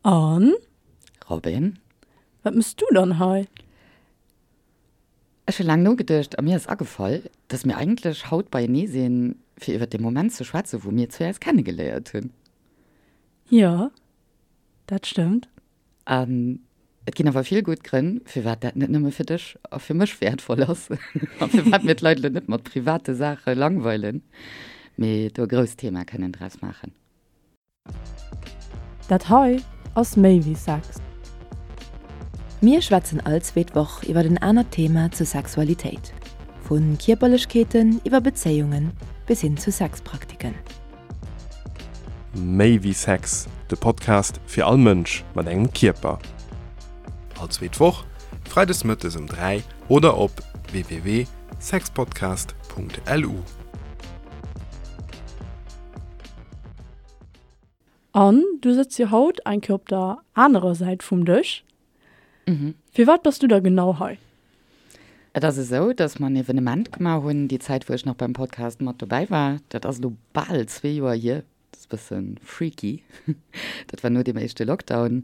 An? Robin? Wat mëss du dann hei? Ech hu laang nogeduecht a mir ass agefall, dass mir eigentlech haut beienee sinn, fir iwwer dee Moment ze schwätzen, wou mir zwee eis kennegeléiert hunn. Jo, dat stëmmt. An et ginn awer vill gutt Grënn, firwat dat net nëmme fir dech a fir mech wäertvoll ass a firwat mir d'Leit elo net mat private Saache langweilen, mee do e grousst Thema kënnen draus maachen. Dat hei ass méi wéi Sex. Mir schwätzen all zweet Woch iwwer en anert Thema zur Sexualitéit, vu Kierperlechkeeten iwwer Bezéiungen bis hin zu Sexpraktiken. Méi wéi Sex, de Podcast fir all Mënsch mat engem Kierper. All zweet Woch, freides mëttes um 3 oder op www.sexpodcast.lu. An du sëtz jo haut eng Kéier op der anerer Säit vum Dësch. Firwat bass du da genau hei? Et ass esou, dass mer en Evenement gemaach hunn, déi Zäit wou ech nach beim Podcast mat dobäi war. Dat ass elo bal zwee Joer hier. Dat ass e bësse freaky. Dat war no deem éischte Lockdown.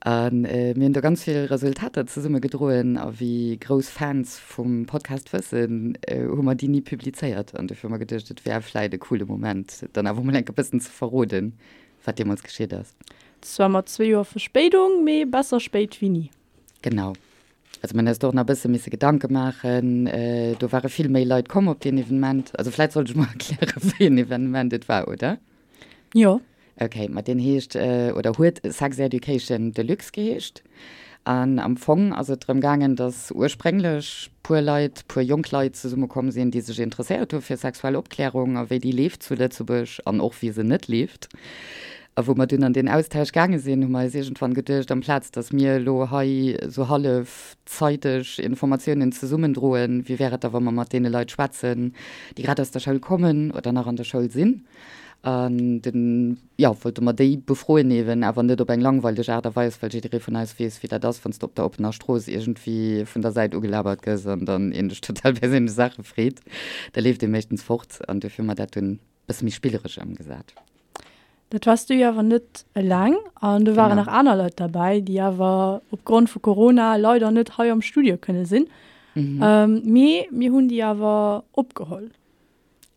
A mir hunn do ganz vill Resultater zesumme gedroen. A wéi grouss Fans vum Podcast wëssen, hu mer déi ni publizéiert. An dofir hu mer geduecht, et wär vläit e coole Moment, dann awer mol enk e bëssen ze verroden, wat deemools geschitt ass. Zwar mat zwee Joer Verspéidung, mee besser spéit wéi ni. Genau. Also mir hunn eis do och nach e bësse misse Gedanke maachen. Do ware vill méi Leit komm op deen Evenement. Also vläit sollt ech mol erklären, wéi en Evenement et war, oder? Jo. Okay, ma deen heescht, oder huet Sex Education Deluxe geheescht. An am Fong ass et drëm gaangen, datt ursprénglech puer Leit, puer jonk Leit zesummekomm sinn, déi sech interesséiert hu fir sexuell Opklärung a wéi déi leeft zu Lëtzebuerg an och wéi se net leeft. A wou mer dunn an deen Austausch gaange sinn, hu mer eis iergendwann geduecht, amplaz datt mir elo hei esou hallef zeiteg Informatiounen zesummendroen, wéi wär et da wa mer mat deene Leit schwätzen, déi grad aus der Schoul kommen oder nach an der Schoul sinn. An dunn, jo, wollte mer déi befroen eeben, awer net op eng langweileg Aart a Weis, well jidderee vun eis weess, wéi dat ass, wann s de op der oppener Strooss iergendwéi vun der Säit ugelabert gëss an dann een dech total perséinlech Saache freet. Da leeft ee meeschtens fort. An duerfir hu mer dat dunn bësse méi spilleresch ëmgesat. Dat wars du jo awer net eleng an do waren nach aner Leit derbäi, déi awer opgrond vu Corona leider net hei am Studio kënne sinn. Mee mir hunn déi awer opgeholl.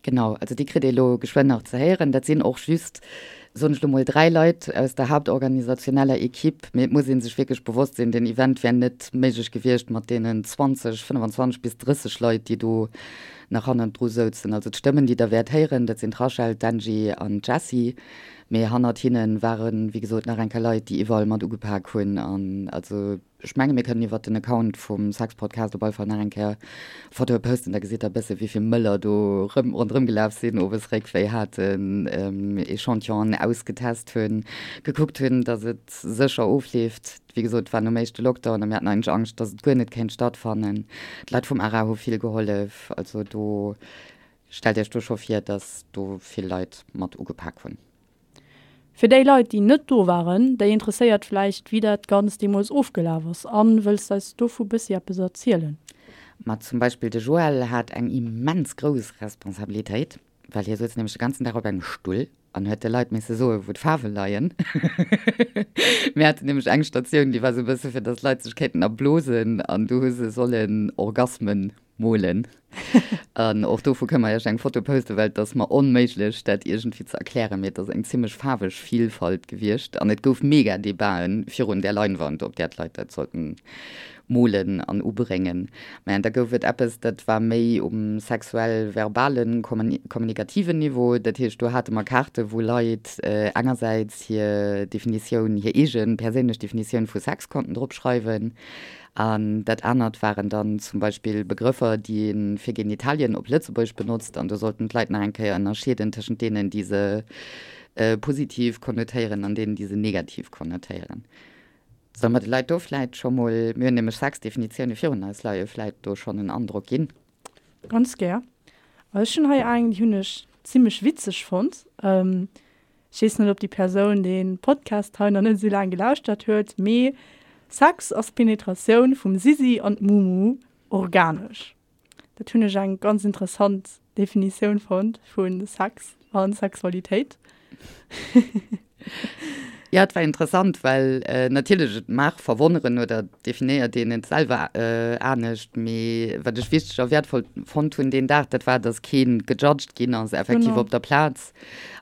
Genau, also déi kritt ee lo geschwënn nach ze héieren. Dat sinn och just, soen ech lo mol, 3 Leit aus der haaptorganisationeller Equipe. Mee et muss ee sech wierklech bewosst sinn, deen Event wär net méiglech gewiescht mat deenen 20, 25 bis 30 Leit, déi do nach hannendru souzen. Also d'Stëmmen, déi Der wäert héieren, dat sinn d'Rachel, d'Angie an d'Jessie. Mee hannert hinne waren, wéi gesot, nach eng Kéier Leit, déi iwwerall mat ugepak hunn. An also ech menge mir kënnen iwwert den Account vum Sexpodcast op alle Fall nach eng Kéier Fotoe posten, da gesitt Der e bësse wéi vill Mëller do rëm ronderëm gelaf sinn, owes Réckwéi haten, Echantillonen ausgetest hunn, gekuckt hunn, datt et sécher ofleeft. Wéi gesot, et war nom éischte Lockdown a mir haten eigentlech Angscht, dass et guer net kéint stattfannen. D'Leit vum ARA hu vill gehollef. Also do, stellt Iech do scho vir, dass do vill Leit mat ugepak hunn. Fir déi Leit, déi net do waren, déi interesséiert vläicht, wéi dat Ganzt deemools ofgelaf ass. Anne, wëlls d'eis dovu bëssi eppes erzielen? Ma zum Beispill de Joël hat eng immens grouss Responsabilitéit, well hie souz nämlech de ganzen Dag op engem Stull an huet de Leit misse soen, wou d'Faarwe leien. Mir haten nämlech eng Statioun, déi war sou e bësse fir datt d'Leit sech kéinten erblosen an du hu se sollen Orgasmen molen. An och dovu kënne mer iech eng Foto posten, well et ass mer onméiglech, dat iergendwéi ze erklären, mee et ass eng zimmlech faarweg Vielfalt gewiescht an et gouf mega Debaten virun där Leinwand, op där d'Leit dat sollten molen an ubréngen. Mä da gouf et eppes, dat war méi um sexuell-verbalen, kommunikativen Niveau. Dat heescht, do hate mer Kaarte wou Leit engersäits hir Definitioun, hir eege perséinlech Definitioun vu Sex konnten drop schreiwen. An dat anert waren dann zum Beispill Begrëffer, déi ee fir Genitalien op Lëtzebuergesch benotzt. An do sollten d'Leit nach eng Kéier ënnerscheeden tëschent deenen, déi se positiv konnotéieren an deenen, déi se negativ konnotéieren. Solle mer de Leit do vläit scho mol, mir hunn nämlech 6 Definitioune virun eis leien, vläit do schonn en Androck ginn? Ganz gär. Ech hunn hei eng, déi hunn ech zimmlech witzeg fonnt. Ech weess net, ob déi Persoun dee Podcast hei nach net esou laang gelauschtert huet, mee Sex ass d'Penetratioun vum Sisi an d'Mumu organesch. Dat hunn ech eng ganz interessant Definitioun fonnt vu Sex a Sexualitéit. Jo, et war interessant, well natierlech, et mag verwonneren oder definéiert een et selwer anescht, mee wat ech wichteg a wäertvoll fonnt hunn deen Dag, dat war, dass kee gejudged ginn ass effektiv op der Plaz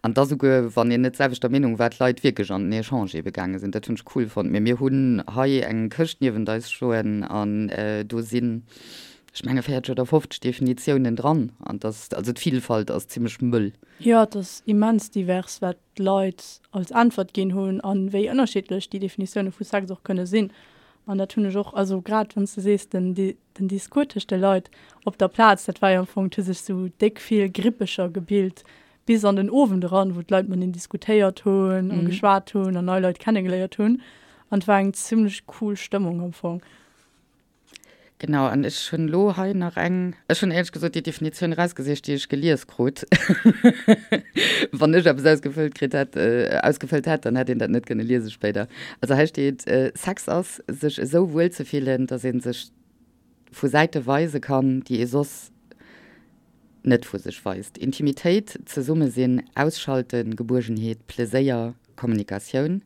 an dass esouguer, wann een net d'selwechter Meenung war, d'Leit wierklech an den Echange ebe gaange sinn. Dat hunn ech cool fonnt. Mee mir hunn hei eng Këscht niewent eis stoen an do sinn, ech menge 40 oder 50 Definitiounen dran an dass, also d'Vilfalt ass zimmlech mëll. Jo, et ass immens divers, wat d'Leit als Äntwert ginn hunn a wéi ënnerschiddlech déi Definitioune vu Sex och kënne sinn. An dat hunn ech och, also grad wann s de sees, den den Discours tëscht de Leit op der Plaz, dat war jo am Fong, et hu sech sou déck vill Grippecher gebilt bis an den Owend eran, wou d'Leit mateneen diskutéiert hunn a geschwat hunn an nei Leit kennegeléiert hunn. An et war eng zimmlech cool Stëmmung am Fong. Genau, an ech hunn elo hei nach eng, ech hunn éierlech gesot déi Definitioun erausgesicht, déi ech gelies krut. Wann ech eppes ausgefëllt kritt hätt, ausgefëllt hätt, dann hätt een dat net kënne liese spéider. Also hei steet, Sex ass, sech esou wuel ze fillen, datt ee sech vu Säite weise kann, déi ee soss net vu sech weist. Intimitéit, Zesummesinn, Ausschalten, Gebuergenheet, Pleséier, Kommunikatioun.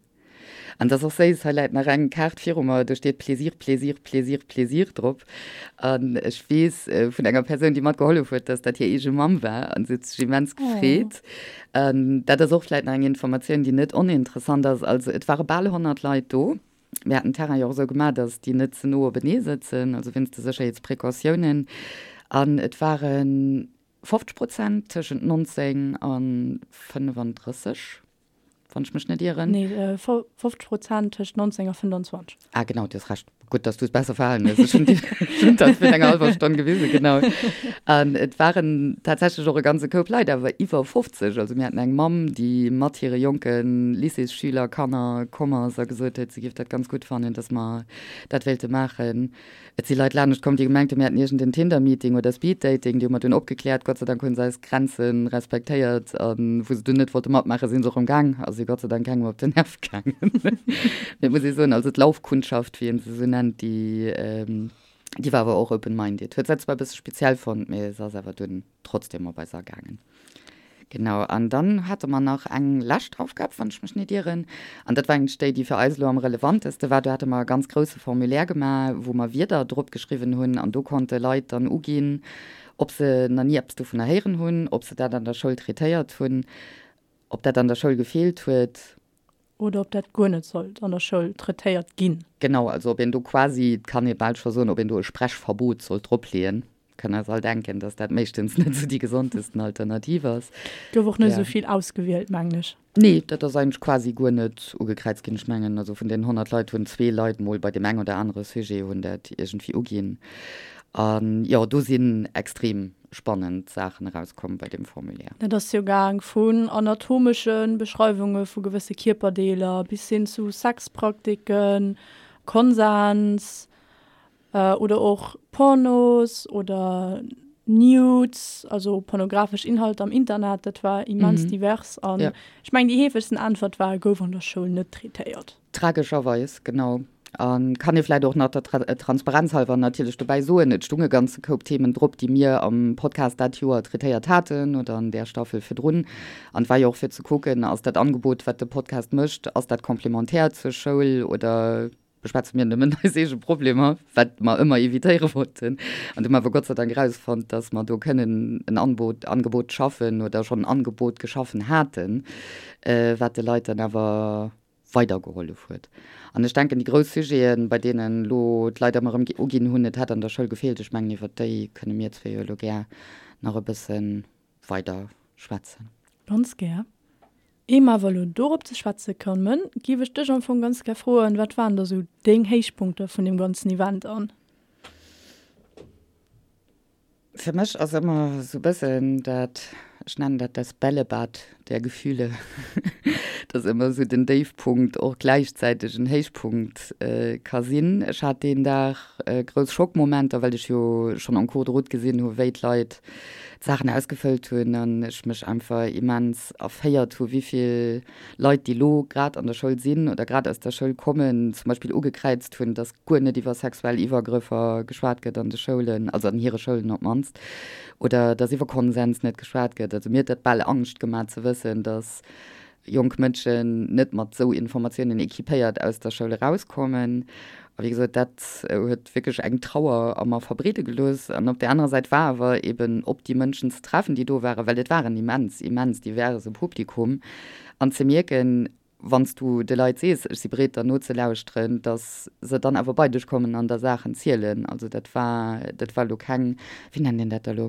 An dat ass och séiss, hei läit nach eng Kaart viru mer, do steet Plaisir, Plaisir, Plaisir, Plaisir drop. An ech weess vun enger Persoun, déi matgehollef huet, dass dat hir eege Mamm war an se huet sech immens gefreet. An dat ass och vläit nach eng Informatioun, déi net oninteressant ass. Also et ware bal 100 Leit do. Mir haten den Terrain jo och esou gemaach, dass déi net ze no openee sëtzen, also wéinst de Sécherheetsprecautiounen. An et ware 50 Prozent tëschent 19 a 35. wann ech mech net ieren. Nee, 50 Prozent tëscht 19 a 25. Ah, genau, du hues Recht. Gutt, dass du es besser verhalen hues. Ech hunn déi, ech hunn dat virun enger hallwer Stonn gewisen, genau. An et waren tatsächlech och e ganze Koup Leit, awer iwwer 50. Also mir haten eng Mamm, déi mat hire jonke Lycéesschüler, Kanner komm ass a gesot huet, si géif dat ganz gutt fannen, dass mer dat wéilte maachen. Et si Leit lanescht komm, déi gemengt hunn, mir hätten iergend en Tinder-Meeting oder Speed-Dating. Déi hu mer dunn opgekläert. Gott sei Dank hu se eis Grenze respektéiert. A wou se dunn net wollte matmaachen, si se och erëm gaang a si Gott sei Dank kengem op den Nerv gaangen. Mee et muss ee soen, also d'Laufkundschaft, wéi ee se esou nennt, déi, déi war awer och open-minded. Huet se zwar e bësse speziell fonnt, mee se ass awer dunn. trotzdem op eis agaangen. Genau, an dann hate mer nach eng lescht Aufgab, wann ech mech net ieren, an dat war eigentlech déi, déi fir eis elo am relevanteste war. Do hate mer e ganz grousse Formulaire gemaach, wou mer Wierder drop geschriwwen hunn, an do konnte Leit dann uginn, ob se nach ni eppes dovunner héieren hunn, ob se dat an der Schoul traitéiert hunn, ob dat an der Schoul gefeelt huet. Oder ob dat guer net sollt an der Schoul traitéiert ginn. Genau, also ob een do quasi, et kann ee bal scho soen, ob een do e Sprechverbot sollt dropleeën. Kënne eis all denken, dass dat meeschtens net esou déi gesondesten Alternativ ass. Gouf och net esou vill ausgewielt, mengen ech. Nee, dat ass eigentlech quasi guer net ugekräizt ginn. Ech mengen, also vun deenen 100 Leit hunn zwee Leit mol bei deem eng oder anere Sujet hunn dat iergendwéi uginn. An jo, do sinn extrem spannend Saachen erauskomm bei deem Formulaire. Dat ass jo gaang vun anatomesche Beschreiwunge vu gewësse Kierperdeeler bis hin zu Sexpraktiken, Konsens oder och Pornos oder Nudes, also pornografesch Inhalter am Internet. Dat war immens divers an ech mengen déi heefegsten Äntwert war, gouf an der Schoul net traitéiert. Tragescherweis, genau. A kann ee vläicht och nach der Transparenz halwer natierlech dobäi soen, et stung e ganze Koup Themen drop, déi mir am Podcast dat Joer traitéiert haten oder an där Staffel virdrun. An et war jo och fir ze kucken, ass dat Angebot, wat de Podcast mécht, ass dat complémentaire zur Schoul oder beschwätze mir nëmmen eis eege Problemer, wat mer ëmmer evitéiere wollten. An du hu mer awer Gott sei Dank erausfonnt, dass mer do kënnen en Anbot, Angebot schaffen oder schonn en Angebot geschaffen haten, wat de Leit dann awer weidergehollef huet. An ech denken, déi grouss Sujeten, bei deenen elo d'Leit ëmmer erëm uginn hunn, et hätt an der Schoul gefeelt, ech mengen, iwwert déi kënne mir zwee jo elo gär nach e bësse weider schwätzen. Ganz gär. Ier mer awer elo dorop ze schwätze kommen, géif ech dech am Fong ganz gär froen, Wat waren da sou deng Héichpunkter vun deem ganzen Event an? Fir mech ass ëmmer esou bëssen dat, ech nennen dat das Bällebad der Gefühle, dass ëmmer esou den Déifpunkt och gläichzäiteg en Héichpunkt ka sinn. Ech hat deen Dag grouss Schockmomenter, well ech jo schonn en cours de route gesinn hu wéi d'Leit d'Saachen ausgefëllt hunn an ech mech einfach immens erféiert hu wéivill Leit, déi elo grad an der Schoul sinn oder grad aus der Schoul kommen, zum Beispill ugekräizt hunn, dass guer net iwwer sexuell Iwwergrëffer geschwat gëtt an de Schoulen, also an hire Schoulen op d'mannst, oder dass iwwer Konsens net geschwat gëtt. Also mir huet dat bal Angscht gemaach ze wëssen, dass. jonk Mënschen net mat esou Informatiounen équipéiert aus der Schoul erauskommen. A wéi gesot, dat huet wierklech eng Trauer a mer verbreede gelooss. An op där anerer Säit war awer eben op déi Mënschen ze treffen, déi do waren, well et war en immens, immens diverse Publikum, an ze mierken, wann s du de Leit sees, ech si bereet der nozelauschteren, datt se dann awer bei dech kommen an der Saachen zielen. Also dat war, dat war elo keng, wéi nennt een dat da elo?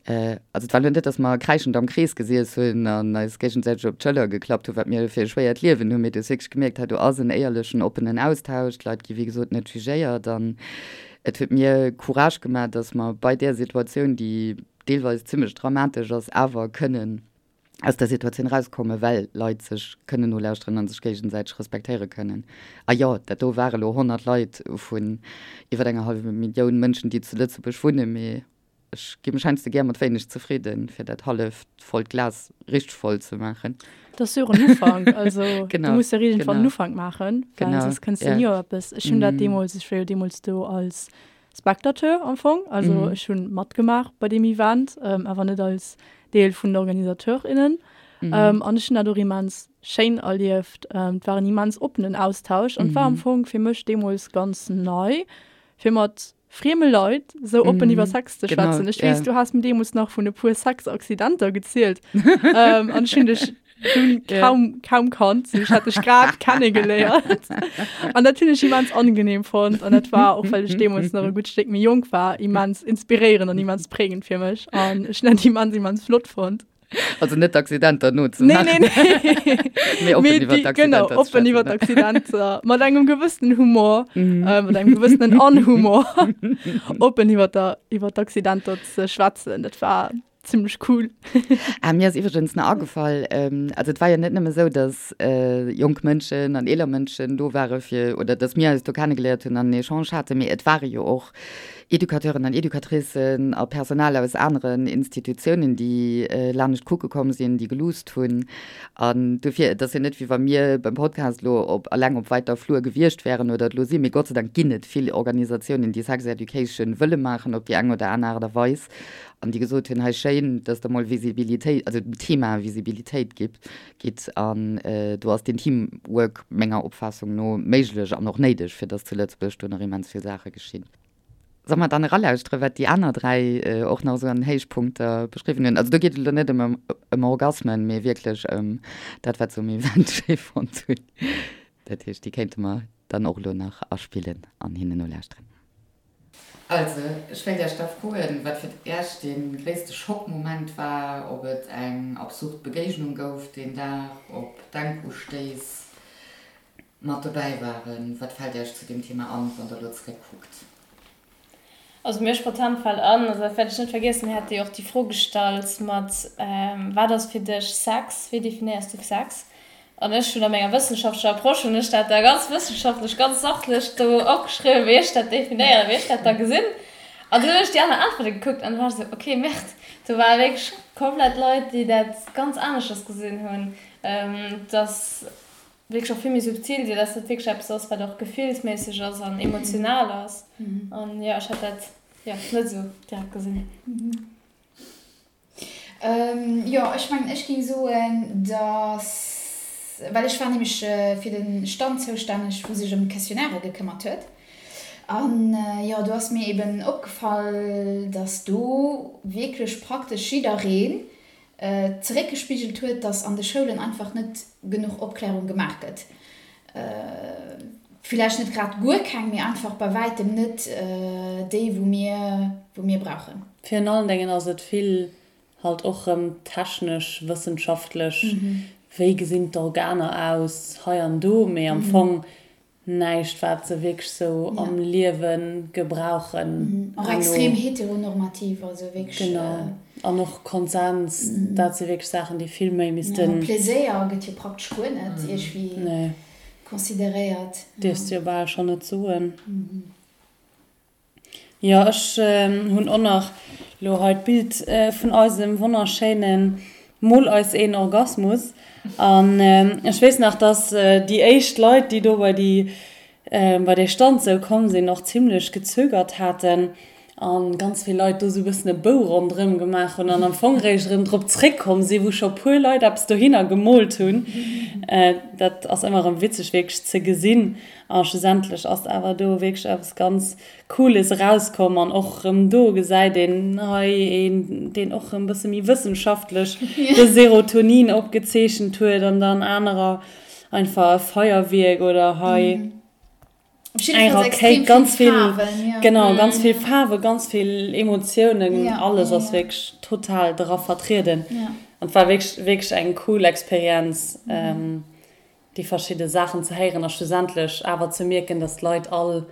Also et war elo net, datt mer kräischend am Krees gesiess hunn an eis géigesäiteg op d'Schëller geklappt hunn, wat mir fir e schwéiert Liewen hunn, mee du hues wierklech gemierkt, hei do ass en éierlechen, oppenen Austausch, d'Leit gi wéi gesot net jugéiert an et huet mir Courage gemaach, datt mer bei där Situatioun, déi deelweis zimmlech dramatesch ass, awer kënnen aus der Situatioun erauskommen, well Leit sech kënnen nolauschteren a sech géigesäiteg respektéiere kënnen. A jo, dat do ware lo 100 Leit vun iwwer enger hallwer Millioun Mënschen, déi zu Lëtzebuerg wunnen, mee ech gi mech heiansdo gär mat wéineg zefridden, fir dat halleft vollt Glas richteg voll ze maachen. Dat ass jo och en Ufank, also du muss jo iergendwann en Ufank maachen, well soss kënns de ni op eppes. Ech hunn dat deemools, ech war jo deemools do als Spectateur am Fong, also mm. ech hunn matgemaach bei deem Event, ähm, awer net als Deel vun den OrganisateurInnen. Mm. Ähm, an ech hunn dat och immens schéin erlieft. Ähm, et war en immens oppenen Austausch an mm. war am mhm. Fong fir mech deemools ganz nei, fir mat frieme Leit sou oppen mm. iwwer Sex ze schwätzen. Ech weess, ja. du has mir deemools nach vun e puer Sexaccidenter gezielt. ähm, an ech hunn dech dunn kaum, kaum kannt. Ech hat dech grad kennegeléiert. An dat hunn ech immens angenehm fonnt. An dat war, och well ech deemools nach e gutt Stéck méi jonk war, immens inspiréierend an immens prägend fir mech. An ech hunn dat immens, immens flott fonnt. Also net d'Accidenter nozemaachen. Nee, nee, nee. Mee oppen iwwer d'Accidenter Genau, oppen iwwer d'Accidenter. Mat engem gewëssenen Humor, mm. äh, mat engem gewëssenen Anhumor, oppen iwwer d'Accidenter ze schwätzen. Dat war Zimmlech cool. Ah, mir ass iwwregens nach agefall, ähm, also et war jo net nëmme sou, dass äh, jonk Mënschen an eeler Mënschen do ware fir, oder dass mir eis do kennegeléiert hunn an en Echange haten, mee et ware jo och Educateuren an Educatricen a Personal aus aneren Institutiounen, déi äh, lanescht kucke komm sinn, déi geluusst hunn. An dofir, et ass jo net, wéi wa mir beim Podcast elo op alleng op weiter Flur gewiescht wären oder et elo sinn, mee Gott sei Dank ginn et vill Organisatiounen, déi Sex Education wëlle maachen op déi eng oder aner Aart a Weis. An déi gesot hunn, hei schéin, dass Der mol Visibilitéit, also dem Thema Visibilitéit gitt, gitt. An do ass deen Teamwork menger Opfaassung no méiglech an och néideg, fir dass zu Lëtzebuerg do nach immens vill Saache geschinn. Solle mer dann eralauschteren, wat déi aner 3 och nach esou an Héichpunkter beschriwwen hunn? Also do geet et elo net ëm ëm Orgasmen, mee wierklech ëm dat, wat se um Event schéi fonnt hunn. Dat heescht, déi kéinte mer dann och elo nach aspillen an hinnen nolauschteren. Also, ech wéilt Iech da froen, wat fir Iech dee gréisste Schockmoment war, ob et eng absurd Begéignung gouf deen Dag, ob Denkustéiss mat dobäi waren. Wat fält Iech zu deem Thema an, wann Der elo zeréckkuckt? Also mir spontan fält an, also dat wäert ech net vergiessen, mir hate jo och déi Fro gestallt mat, Wat ass fir dech Sex? Wéi definéiers du Sex? An ech hunn a menger wëssenschaftlecher Approche hunn ech dat da ganz wëssenschaftlech, ganz sachlech do opgeschriwwen, wéi ech dat definéieren, wéi ech dat da gesinn. An dunn hunn ech déi aner Äntwerte gekuckt an du war ech esou, okay, Merde, do ware wierklech komplett Leit, déi dat ganz aneschters gesinn hunn, dass wierklech och vill méi subtil sinn, dass dat wierklech eppes ass, wat och gefillsméisseg ass an emotional ass. An jo, ech hat dat, jo, net esou direkt gesinn. Jo, ech mengen, ech géing soen, dass, well ech war nämlech fir de Stand zoustänneg, wou sech ëm d'Questionnairë gekëmmert huet. An jo, do ass mir eben opgefall, dass do wierklech praktesch jiddereen zeréckgespigelt huet, dass an de Schoulen einfach net genuch Opklärung gemaach gëtt. Villäicht net grad guer keng, mee einfach bei wäitem net déi, wou mir, wou mir brauchen. Virun allen Déngen ass et vill halt och rëm technesch, wëssenschaftlech, wéi gesinn d'Organer aus hei an do, mee am Fong näischt wat se wierklech sou am Liewe gebrauchen. Och extrem heteronormativ, also wierklech. Genau, an och Konsens, dat si wierklech Saachen, déi vill méi missten. Pleséier gëtt jo praktesch guer net iergwéi consideréiert. Dierfs de jo bal schonn net soen. Jo, ech hunn och nach lo hei d'Bild vun eisem wonnerschéine Mol eis een Orgasmus. An ech weess nach, dass déi éischt Leit, déi do bei déi, bei dee Stand sou komm sinn, och zimlech gezögert haten. An ganz vill Leit do sou bëssen e Bou ronderëm gemaach hunn an am Fong réischt erëm drop zréckkomm sinn, wou scho puer Leit eppes dohinner gemoolt hunn. Dat ass ëmmer erëm witzeg wierklech ze gesinn. A schlussendlech ass awer do wierklech eppes ganz Cooles erauskomm. An och erëm do gesäit een hei een, deen och erëm bësse méi wëssenschaftlech de Serotonin opgezeechent huet an dann anerer einfach e Feierwierk oder hei. Eng Rakéit, ganz vill Faarwen, ja. Genau, ganz vill Faarwen, ganz vill Emotiounen, ja, alles ass ja, wierklech total dra vertrieden. Ja. An et war wierklech, wierklech eng cool Experienz, mhm. ähm, déi verschidde Saachen ze héieren a schlussendlech awer ze mierken, dass d'Leit all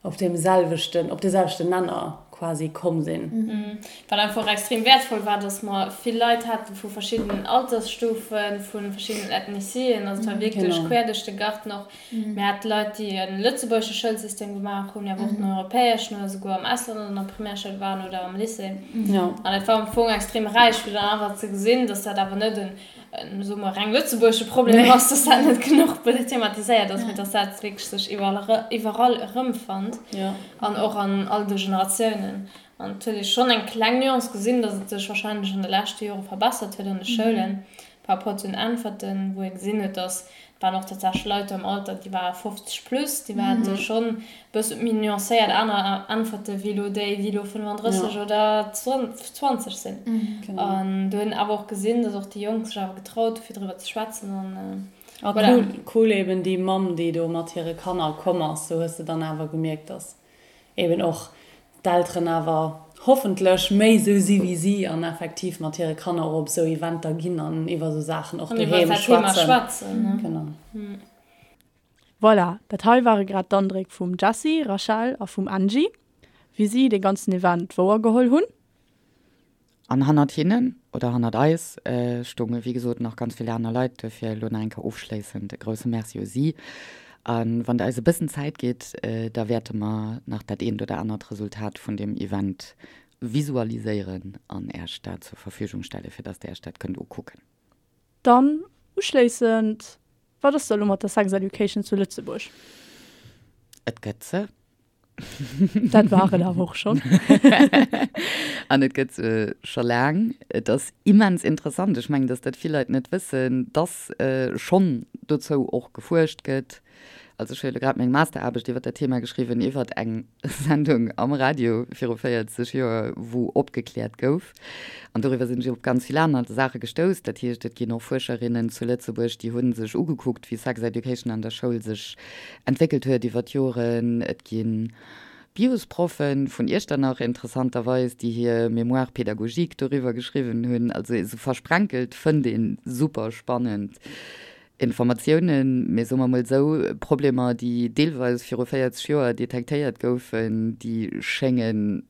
op deem selwechten, op dee selwechten Nenner quasi komm sinn. Wat einfach och extrem wäertvoll war, dass mer vill Leit haten vu verschiddenen Altersstufen, vu verschiddenen Ethnicieen, also et war wierklech quer duerch de Garten och. Mir hate Leit, déi e lëtzebuergesche Schoulsystem gemaach hunn, awer och den europäeschen oder souguer am Ausland an der Primärschoul waren oder am Lycée. An et war am Fong extrem räich, fir dann einfach ze gesinn, dass dat awer net en, soe mer, reng lëtzebuergesche Problem ass, dass dat net genuch thematiséiert ass, mee dass dat wierklech sech iwwerall erëmfënnt an och an all de Generatiounen. An et huet ee schonn eng kleng Nuance gesinn, dass et sech warscheinlech an de leschte Jore verbessert huet an de Schoulen par rapport zu den Äntwerten, wou ee gesinn huet, dass et waren och tatsächlech Leit do am Alter, déi ware 50 plus, déi hate schonn e bësse méi nuancéiert aner Äntwerte wéi elo déi, déi elo 35 oder 20 sinn. An do hunn awer och gesinn, dass och déi Jonk sech awer getraut hu fir driwwer ze schwätzen. An A voilà. Cool eben déi Mamm, déi do mat hire Kanner komm ass, do hues de dann awer gemierkt, dass eben och d'Elteren awer hoffentlech méi esou si wéi si an effektiv mat hire Kanner och op esou Eventer ginn an iwwer esou Saachen och doheem schwätzen. Genau. Voilà, dat hei ware grad d'Andréck vum Jessy, Rachel a vum Angie, wéi si dee ganzen Event wouergeholl hunn. An hannert hinnen, oder hannert eis, stounge wéi gesot nach ganz vill aner Leit. Duerfir elo nach eng Kéier ofschléissend e grousse Merci u si. A wann Der eis e bëssen Zäit gitt, da wäerte mer nach dat eent oder anert Resultat vun deem Event visualiséieren an Äech dat zur Verfügung stellen, fir dass Der Äech dat kënnt ukucken. Dann uschléissend, Wat ass da elo mat der Sex Education zu Lëtzebuerg? Et gëtt se. Dat war et awer och schonn. An et gëtt se scho laang. Et ass immens interessant, ech mengen, datt dat vill Leit net wëssen, datt schonn dozou och gefuerscht gëtt. Also ech hu jo elo grad meng Masteraarbecht iwwer dat Thema geschriwwen, iwwer eng Sendung am Radio viru 40 Joer, wou opgekläert gouf. An doriwwer sinn ech op ganz vill aner Saache gestouss. Dat heescht, et ginn och Fuerscherinnen zu Lëtzebuerg, déi hu sech ugekuckt, wéi Sex Education an der Schoul sech entwéckelt huet iwwer d'Joren. Et gi Biosproffen vun Iechternach interessanterweis, déi hir Mémoire pédagogique doriwwer geschriwwen hunn. Also esou versprenkelt fënnt ee super spannend Informatiounen. Mee soe mer mol esou, Problemer, déi deelweis viru 40 Joer detektéiert goufen, déi schéngen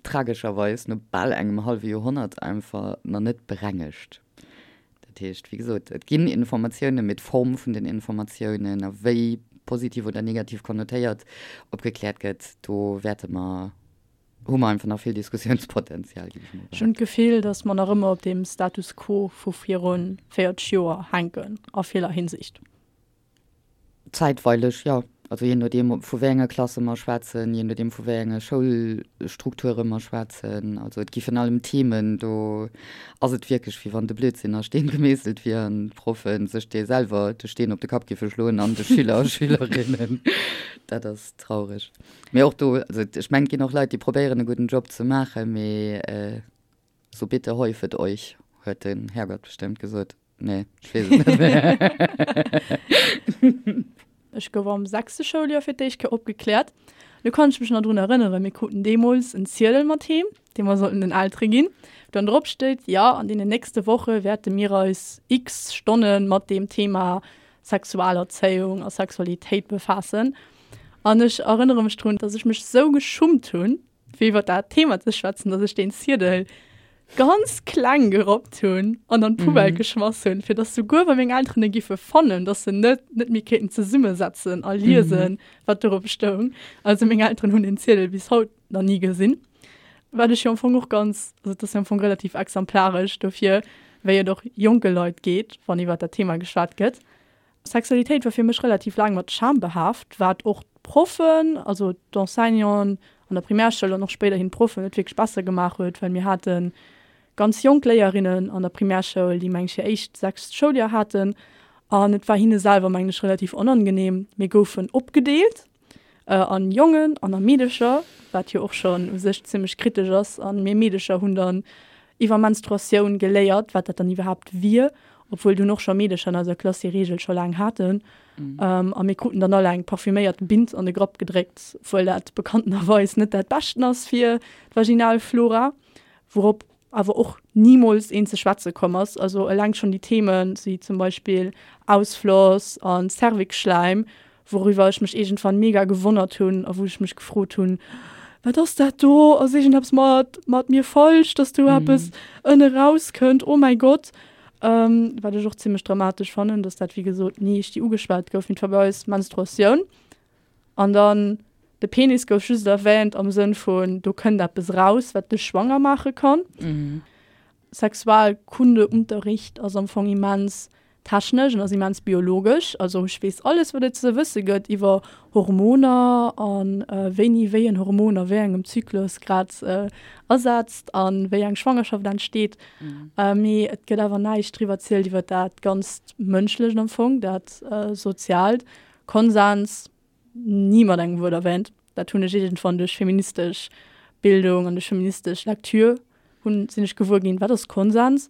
tragescherweis no bal engem hallwe Joerhonnert einfach nach net berengegt. Dat heescht, wéi gesot, et ginn Informatiounen, mee d'Form vun den Informatiounen a wéi positiv oder negativ konnotéiert opgekläert gëtt, do wäerte mer, hu mer einfach nach vill Diskussiounspotenzial, géif ech mol Ech hunn d'Gefill, datt mer nach ëmmer op deem Status quo vu viru 40 Joer hänken a viller Hinsicht. Zäitweileg, jo. Also jee nodeem, vu wéi enge Klasse mer schwätzen, jee nodeem, vu wéi enge Schoulstrukture mer schwätzen. Also et gi virun allem Themen, do ass et wierklech, wéi wann de Blödsinn a Steen gemeesselt wier an d'Proffe sech dee selwer de Steen op de Kapp giffe schloen an de Schüler a Schülerinnen. Dat ass traureg. Mee och do, also ech mengen, et ginn och Leit, déi probéieren e gudden Job ze maachen, mee so bitte häufet euch, huet den Herrgott bestëmmt gesot. Nee, ech weess et net méi. Ech gouf am sechste Schouljoer fir d'éischt Kéier opgekläert. Do kann ech mech nach drun erënneren, mir kruten deemools en Ziedel mat heem, dee mer sollten den Eltere ginn, wou dann drop steet, jo, an deenen nächste Woche wäerte mir eis x Stonne mat deem Thema Sexualerzéiung a Sexualitéit befaassen. An ech erënnere mech drun, dass ech mech sou geschummt hunn, fir iwwer dat Thema ze schwätzen, dass ech deen Ziedel ganz kleng gerappt hunn an an d'Poubelle mhm. geschmass hunn, fir dass souguer wa meng Elteren e giffe fannen, dass se net net méi kéinten zesummesetzen a liesen, mhm. wat dorop stoung. Also meng Elteren hunn den Ziedel bis haut nach nie gesinn. Wat ech jo am Fong och ganz, also dat ass jo am Fong relativ exemplaresch dofir, wéi et och jonke Leit geet, wann iwwer dat Thema geschwat gëtt. Sexualitéit war fir mech relativ laang mat Scham behaaft, wat och d'Proffen, also d'Enseignanten. an der Primärschoul an och spéiderhin d'Proffen net wierklech besser gemaach huet, well mir hate ganz jonk Léierinnen an der Primärschoul, déi meng ech hir éischt sechst Schouljoer haten an et war hinne selwer meng ech relativ onangenehm. Mir goufen opgedeelt an Jongen an a Meedecher, wat jo och schonn u sech zimmlech kritesch ass an mir Meedecher hunn dann iwwer Menstruatioun geléiert, wat dat dann iwwerhaapt wier, obwuel dunn och scho Meedecher an eiser Klass déi Reegel scho laang haten. A mir kruten dann all eng parfüméiert Bint an de Grapp gedréckt, obwuel dat bekanntenerweis net dat Beschten ass fir d'Vaginalflora, wourop awer och nimools een ze schwätze komm ass. Also eleng schonn déi Themen, wéi zum Beispill Ausfloss a Cervixschläim, wouriwwer ech mech iergendwann mega gewonnert hunn a wou ech mech gefrot hunn, Wat ass dat do? Ass iergendeppes mat mat mir falsch, dass do eppes ënne rauskënnt? Oh mäi Gott! Wat ech och zimmlech dramatesch fannen, dass dat wéi gesot ni richtig ugeschwat gouf. Mee et war bei eis Menstruatioun. An dann de Penis gouf just erwähnt am Sënn vun, do kënnt eppes raus, wat dech schwanger maache kann. Sexualkundeunterricht ass am Fong immens technesch an ass immens biologesch. Also ech weess alles, wat et ze wësse gëtt iwwer Hormoner a wéini wéi en Hormon a wéi engem Zyklus grad asetzt a wéi eng Schwangerschaft entsteet. Mee et gëtt awer näischt driwwer zielt iwwer dat ganzt Mënschlecht am Fong, dat Soziaalt. Konsens, ni mat engem Wuert erwähnt. Dat hunn ech iergendwann duerch feministesch Bildung an duerch feministesch Lektür hunn, sinn ech gewuer ginn, wat ass Konsens.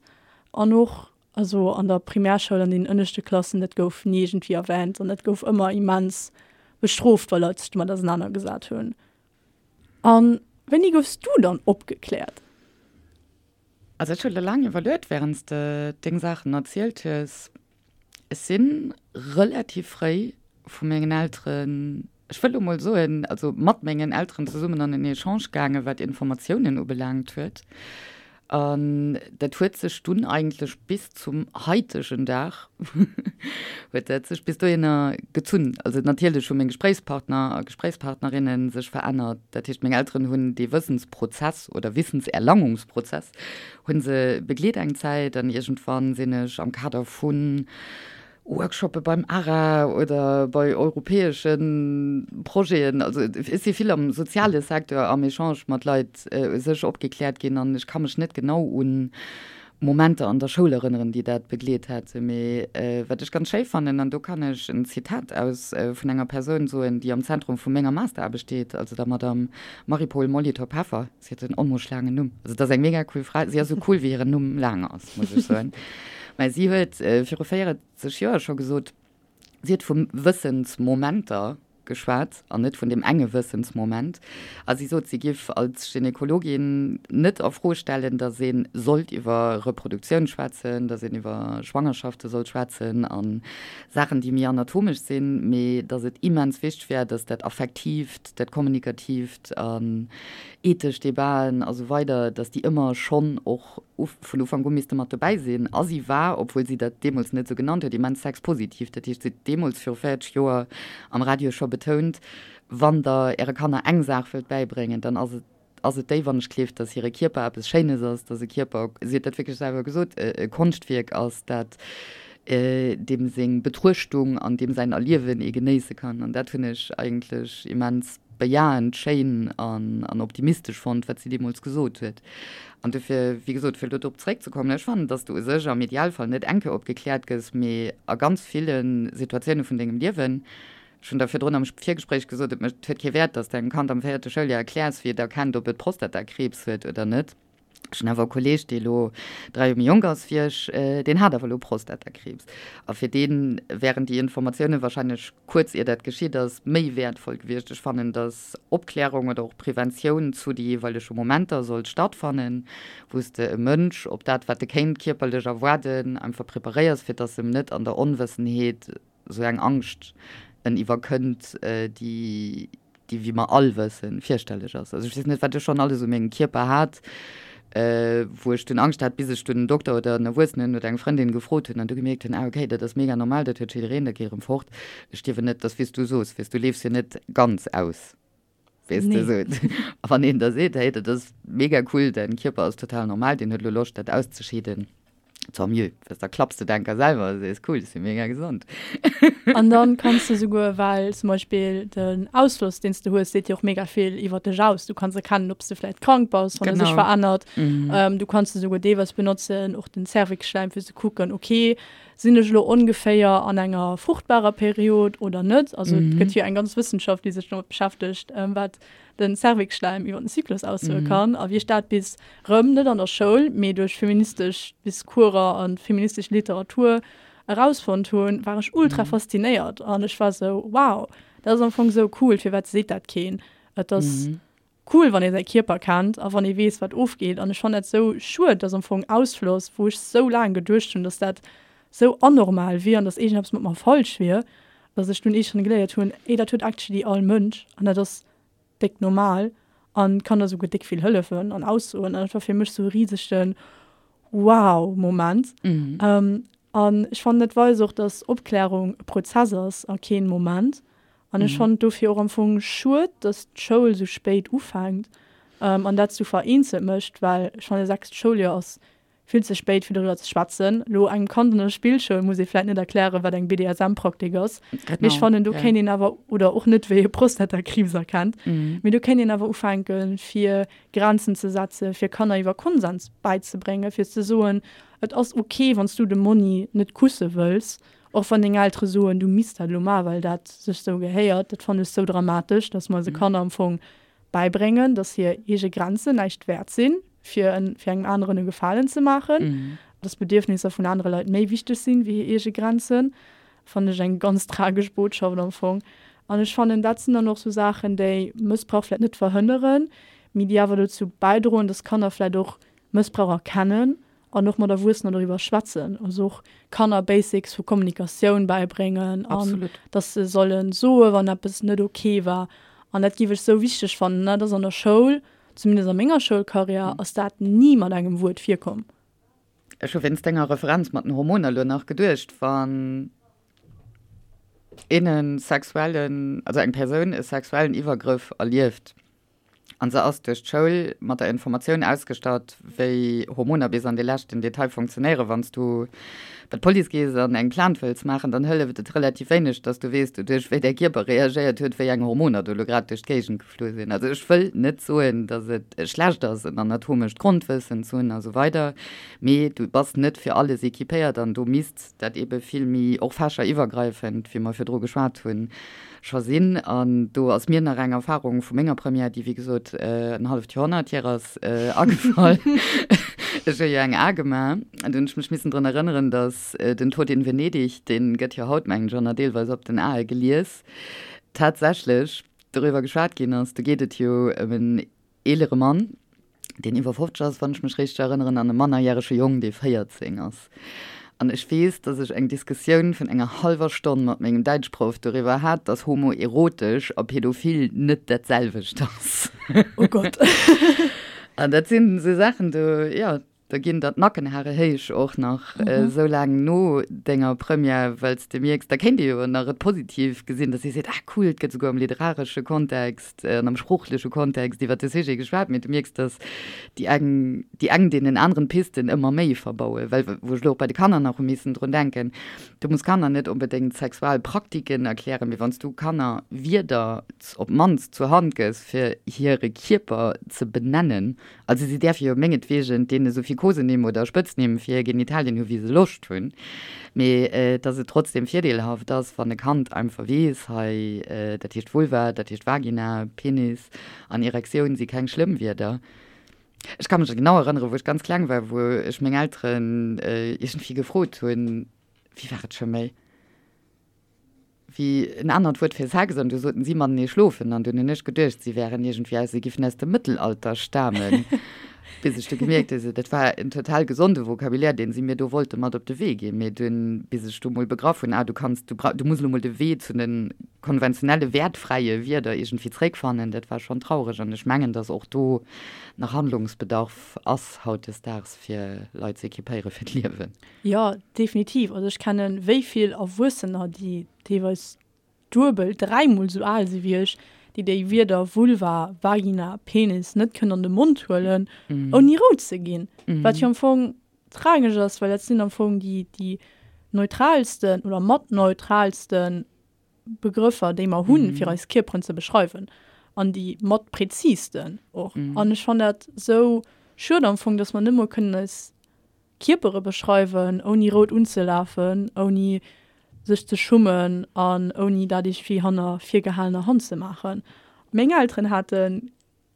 An och also an der Primärschoul an den ënneschte Klassen, dat gouf ni iergendwéi erwähnt an dat gouf ëmmer immens bestrooft, wa Leit sech domat ausenanergesat hunn. A wéini goufs du dann opgekläert? Also ech hu lo laang iwwerluet, wärend s de deng Saachen erzielt hues. Ech si relativ fréi vu mengen Elteren, ech wëll lo mol soen, also mat mengen Elteren zesummen an en Echange gaangen, wat Informatiounen ubelaangt huet. An dat huet sech dunn eigentlech bis zum haitegen Dag huet dat sech bis dohinner gezunn. Also natierlech hu meng Gespréichspartner a Gespréichspartnerinne sech verännert. Dat heescht, meng Elteren hunn dee Wëssensprozess oder Wissenserlangungsprozess hu se begleet eng Zäit an iergendwann sinn ech am Kader vu Workshoppe beim ARA oder bei europäesche Projeten, also ech si vill am soziale Secteur am Echange mat Leit u sech opgekläert ginn an ech ka mech net genau un Momenter an der Schoul erënneren, déi dat begleet hätten. Mee wat ech ganz schéi fannen, an do kann ech en Zitat aus vun enger Persoun soen, déi am Zentrum vu menger Masteraarbecht steet, also der Madame Marie-Paule Molitor-Peffer, Si huet en onmoosch laangen Numm. Also et ass eng mega cool Fra. Si ass esou cool, wéi hiren Numm laang ass, muss ech soen. Mä si huet viru 40 Joer scho gesot, si huet vu Wëssensmomenter geschwat an net vun deem enge Wëssensmoment. A si sot, si giff als Gynäkologin net a Fro stellen, datt ee sollt iwwer Reproduktioun schwätzen, datt een iwwer Schwangerschafte sollt schwätzen a Saachen, déi méi anatomesch sinn, mee datt et immens wichteg wär, datt dat Affektiivt, dat Kommunikatiivt an ethesch Debaten a sou weider, datt déi ëmmer schonn och vun Ufank u misste mat dobäi sinn. A si war, obwuel si dat deemools net esou genannt huet, immens sexpositiv. Dat heescht, si huet deemools viru 40 Joer am Radio scho betount, Wann Der Äre Kanner eng Saach wëllt bäibréngen, dann ass et ass et déi, wann ech gleeft, datt hire Kierper eppes Schéines ass, datt e Kierper, si huet dat wierklech selwer gesot, e Konschtwierk ass, dat deem seng Betruechtung an deem säin Erliewen ee genéisse kann. An dat hunn ech eigentlech immens bejahend, schéin an optimistesch fonnt, wat si deemools gesot huet. An dofir, wéi gesot, fir elo drop zeréckzekommen, ech fannen, datt s de u sech am Idealfall net eng Kéier opgekläert gëss, mee a ganz ville Situatioune vun dengem Liewen, Ech hunn der virdrun am Virgespréich gesot, et mécht, huet kee Wäert, datt s de engem Kand am véierte Schouljoer erkläers, wéi et erkennt, ob et Prostatakriibs huet oder net. Ech hunn awer e Kolleeg, dee elo 3 Joer méi jonk ass wéi ech, deen hat awer elo Prostatakriibs. A fir dee wären déi Informatioune wahrscheinlech kuerz ier dat geschitt ass, méi wäertvoll gewiescht. Ech fannen, datt Opklärung oder och Preventioun zu de jeeweilege Momenter sollt stattfannen, wou s de e Mënsch op dat, wat e kéint kierperlech erwaarden, einfach preparéiers, fir datt em net an der Onwëssenheet esou eng Angscht en iwwerkënnt, déi, déi, wéi mer all wëssen, fierchterlech ass. Also ech weess net, wat ech schonn alles u mengem Kierper hat, wou ech dunn Angscht hat, bis ech dunn en Dokter oder en Erwuessenen oder eng Frëndin gefrot hunn an du gemierkt hunn, ah okay, dat ass mega normal, dat huet jiddereen, dat geet erëm fort. Ech stierwen net, dat ass wéi s du soos, weess, du leefs jo net ganz aus. Weess de, esou. A wann een da seet, hey, dat ass mega cool, däin Kierper ass total normal, deen huet elo Loscht, dat auszescheeden. Tant mieux, well da klapps de d'Enker selwer a sees, cool, ech si mega gesond. An dann kanns de souguer, well zum Beispill den Ausfloss, deen s de hues, seet dir och mega vill iwwer dech aus. Du kanns erkennen, ob s de vläicht krank bass, wann e sech verännert. Du kanns e souguer deelweis benotzen, och den Cervixschläim, fir ze kucken, okay, sinn ech elo ongeféier an enger fruchtbarer Period oder net? Also et gëtt jo eng ganz Wëssenschaft, déi sech domat beschäftegt, wat den Cervixschläim iwwer den Zyklus aussoe kann. A wéi ech dat bis rëm, net an der Schoul, mee duerch feministesch Discourser a feministesch Literatur erausfonnt hunn, war ech ultra faszinéiert an ech war sou, wow, dat ass am Fong sou cool, firwat seet dat keen? Et ass cool, wann ee säi Kierper kennt a wann ee weess, wat ofgeet. An ech fannen dat sou schued, dass am Fong Ausfloss, wou ech sou laang geduecht hunn, dass dat sou anormal wier an dass iergendeppes mat mer falsch wier, dass ech dunn iergendwann geléiert hunn, ey, dat huet actually all Mënsch an dat ass déck normal an kann der souguer déck vill hëllefen an aussoen. An dat war fir mech sou e risegen Wow-Moment. An ech fannen, dat weist och, dass Opklärung e Prozess ass a keen Moment. An ech fannen et dofir och am Fong schued, dass d'Schoul sou spéit ufänkt an dat sou vereenzelt mécht, well ech fannen, sechst Schouljoer ass vill ze spéit fir doriwwer ze schwätzen. Elo engem Kand an der Spillschoul muss ee vläit net erklären, wat eng BDSM-Praktik ass, mee ech fannen do kéint een awer, oder och net wéi ee Prostatakriibs erkennt, mee do kéint een awer ufänken, fir Grenzen ze setzen, fir Kanner iwwer Konsens bäizebréngen, fir ze soen, et ass ok, wann s du de Monni net kusse wëlls, och wann deng Eltere soen, du misst dat elo maachen, well dat sech sou gehéiert. Dat fannen ech sou dramatesch, dass mer eise Kanner am Fong bäibréngen, dass hir eege Grenzen näischt wäert sinn, fir en, fir engem aneren e Gefalen ze maachen, dass d'Bedierfnisser vun anere Leit méi wichteg sinn, wéi hir eege Grenzen, fannen ech eng ganz tragesch Botschaft am Fong. An ech fannen, dat sinn dann och sou Saachen, déi Mëssbrauch vläicht net verhënneren, mee déi awer dozou bäidroen, dass Kanner vläicht och Mëssbrauch erkennen an och mat Erwuessener doriwwer schwätzen, also och Kanner Basics vu Kommunikatioun bäibréngen an dass se solle soe wann eppes net ok war. An dat géif ech sou wichteg fannen. Dat ass an der Schoul, zumindest a menger Schoulkarriär, ass dat ni mat engem Wuert virkomm. Ech hu wéinst denger Referenz mat den Hormoner elo nach geduecht, wann een e sexuellen, also eng Persoun e sexuellen Iwwergrëff erlieft, An se ass duerch d'Schoul mat der Informatioun ausgestatt, wéi Hormoner bis an de leschten Detail funktionéieren. Wann s du bei d'Police gees an eng Plainte wëlls maachen, dann hëlleft et relativ wéineg, dass du weess, doduerch wéi däi Kierper reagéiert huet, wéi eng Hormoner do elo grad duerch d'Géigend geflu sinn. Also ech wëll net soen, dass et schlecht ass, en anatomescht Grondwëssen ze hunn a sou weider, mee du bass net fir alles equipéiert an do misst dat eebe vill méi och fächeriwwergreifend, wéi mer virdru geschwat hunn, scho sinn. An do ass mir nach eng Erfahrung vu menger Première, déi wéi gesot en halleft Joerhonnert hier ass, agefall. Ech hu jo eng A gemaach an do hunn ech mech missen drun erënneren, datt den Tod in Venedig, dee gëtt jo haut, mengen ech, och nach deelweis op den Ae gelies, tatsächlech doriwwer geschwat ginn ass. Do geet et jo ëm en eelere Mann, deen iwwer 50 ass, wann ech mech richteg erënneren, an e mannerjärege Jong, dee 14 ass. An ech weess, dass ech eng Diskussioun vun enger hallwer Stonn mat mengem Däitschproff doriwwer hat, dass homoerotesch a pädophil net dat selwecht ass. Oh Gott. An dat sinn esou Saachen, do, jo, Da ginn der d'Nackenhare héich och nach esou laang no denger Première, well s de mierks, da kéint ee jo nach et positiv gesinn, dass ee seet, ah cool, et gëtt esouguer am literaresche Kontext an am sproochleche Kontext iwwer de Sujet geschwat, mee du mierks, dass déi eng déi eng deenen aneren d'Pisten ëmmer méi verbauen. Well wou ech elo och bei de Kanner nach hu missen drun denken, du muss Kanner net onbedéngt Sexualpraktiken erklären, mee wann s du Kanner Wierder op d'mannst zur Hand gëss, fir hire Kierper ze benennen, Also si däerfe jo mengetwegen deene sou vill Kosenimm oder Spëtznimm fir hir Genitalien hu wéi se Loscht hunn, mee dass et trotzdem virdeelhaft ass, wann e Kand einfach weess, hei dat heescht Vulva, dat heescht Vagina, Penis an Erektioun si keng schlëmm Wierder. Ech ka mech genau erënnere wou ech ganz kleng war, wou ech meng Elteren iergendwéi gefrot hunn, wéi war et scho méi? wéi en anert Wuert fir Sex, an du soten si matenee schlofen, an dunn hunn ech geduecht, si wären iergendwéi aus, si giffen aus dem Mëttelalter stamen, bis ech du gemierkt hu, dat war en total gesonde Vocabulaire, deen si mir do wollte mat op de Wee ginn, mee dunn, bis ech du mol begraff hunn, ah, du kanns, du bra, du muss elo mol de Wee zu de konventionelle wäertfräie Wierder iergendwéi zréckfannen, dat war schonn traureg, an ech mengen, dass och do nach Handlungsbedarf ass hautdesdaags, fir Leit ze equipéiere fir d'Liewen. Jo, definitiv. Also ech kennen wéi vill Erwuessener, déi deelweis duebel, dräimol esou al si wéi ech, déi déi Wierder Vulva, Vagina, Penis net kënnen an de Mond huelen, ouni rout ze ginn. Wat jo am Fong. tragesch ass, well dat sinn am Fong déi, déi neutralsten oder mat neutralsten Begrëffer, déi mer hunn, fir eis Kierperen ze beschreiwen an déi mat präzisten och. An ech fannen dat sou schued am Fong, dass mer net mol kënnen eis Kierpere beschreiwen, ouni rout unzelafen, ouni sech ze schummen an ouni dat iergendwéi hanner virgehalener Hand ze maachen. Meng Elteren haten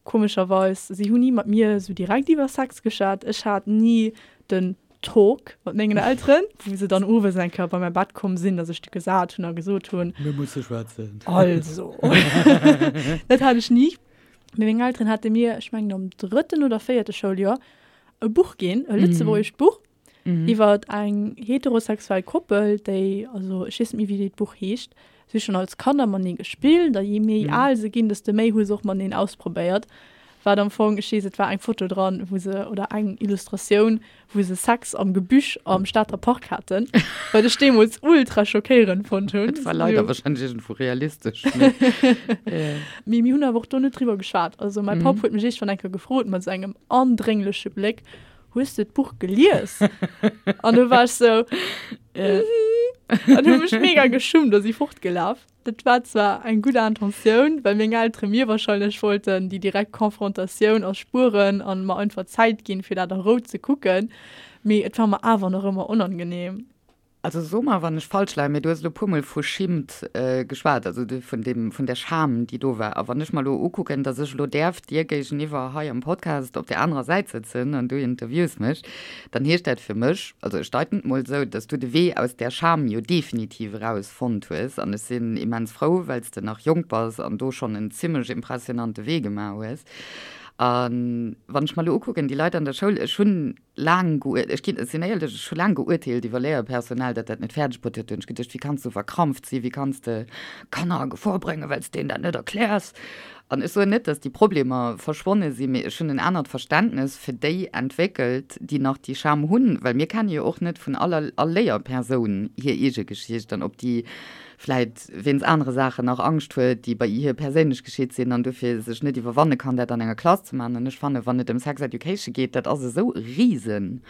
Komescherweis, si hunn ni mat mir esou direkt iwwer Sex geschwat. Ech hat ni den Talk mat mengen Elteren, wou se dann owes eng Kéier bei mäi Bett komm sinn a sech du gesat hunn a gesot hunn. Mir musse schwätzen. Also, dat hat ech ni. Mee meng Elteren hate mir, ech mengen am drëtten oder véierte Schouljoer, e Buch ginn, e lëtzebuergescht Buch. Iwwer eng heterosexuell Koppel, déi, also ech weess net méi wéi dat Buch heescht, si hu schonn als Kanner matenee gespillt a jee méi al se ginn, desto méi hu se och mateneen ausprobéiert. Wat am Fong, ech weess et war eng Foto dran, wou se, oder eng Illustratioun, wou se Sex am Gebüsch am Stater Park haten, wat ech deemools ultra schockéierend fonnt hunn. Et war leider wahrscheinlech iergendwou realistesch, mee. Mee mir hunn awer och do net driwwer geschwat. Also mäi Papp huet mech iergendwann eng Kéier gefrot mat esou engem andréngleche Bléck, Hues de d'Buch gelies? An du war ech sou, mhm. An hu mech mega geschummt a si fortgelaf. Dat war zwar eng gutt Intentioun, well meng Eltere mir wahrscheinlech wollten déi direkt Konfrontatioun erspueren an mer einfach Zäit ginn, fir dat a Rou ze kucken, mee et war mer awer nach ëmmer onangenehm. Also so mer, wann ech falsch leien, mee du hues elo puermol vu Schimmt geschwat, also vun deem, vun där Scham, déi do war. A wann ech mer elo ukucken, datt ech elo däerf dir géigeniwwer hei am Podcast op där anerer Säit sëtzen an du interviews mech, dann heescht dat fir mech, also ech deiten et mol esou, datt du de Wee aus där Scham jo definitiv eraus fonnt hues. An ech sinn immens frou, well s de nach jonk bass an do schonn en zimlech impressionante Wee gemaach hues. A wann ech mer elo ukucken, déi Leit an der Schoul, ech hunn laang geuer, ech ginn, ech sinn éierlech, ech hu laang geurteelt iwwer Léierpersonal, dat dat net fäerdeg bruet huet. Do hunn ech geduecht, wéi kanns du verkrampft sinn, wéi kanns de Kanner a Gefor bréngen, well s de deenen dat net erkläers. An ech soen net, datt déi Problemer verschwonne sinn, mee ech hunn en anert Verständnes fir déi entwéckelt, déi nach déi Scham hunn, well mir kenne jo och net vun aller, all Léierpersoun hir eege Geschicht an ob déi vläit wéinst anere Saachen nach Angscht huet, déi bei hir perséinlech geschitt sinn an dofir sech net iwwerwanne kann, dat an enger Klass ze maachen. An ech fannen, wann et ëm Sex Education geet, dat ass esou e risen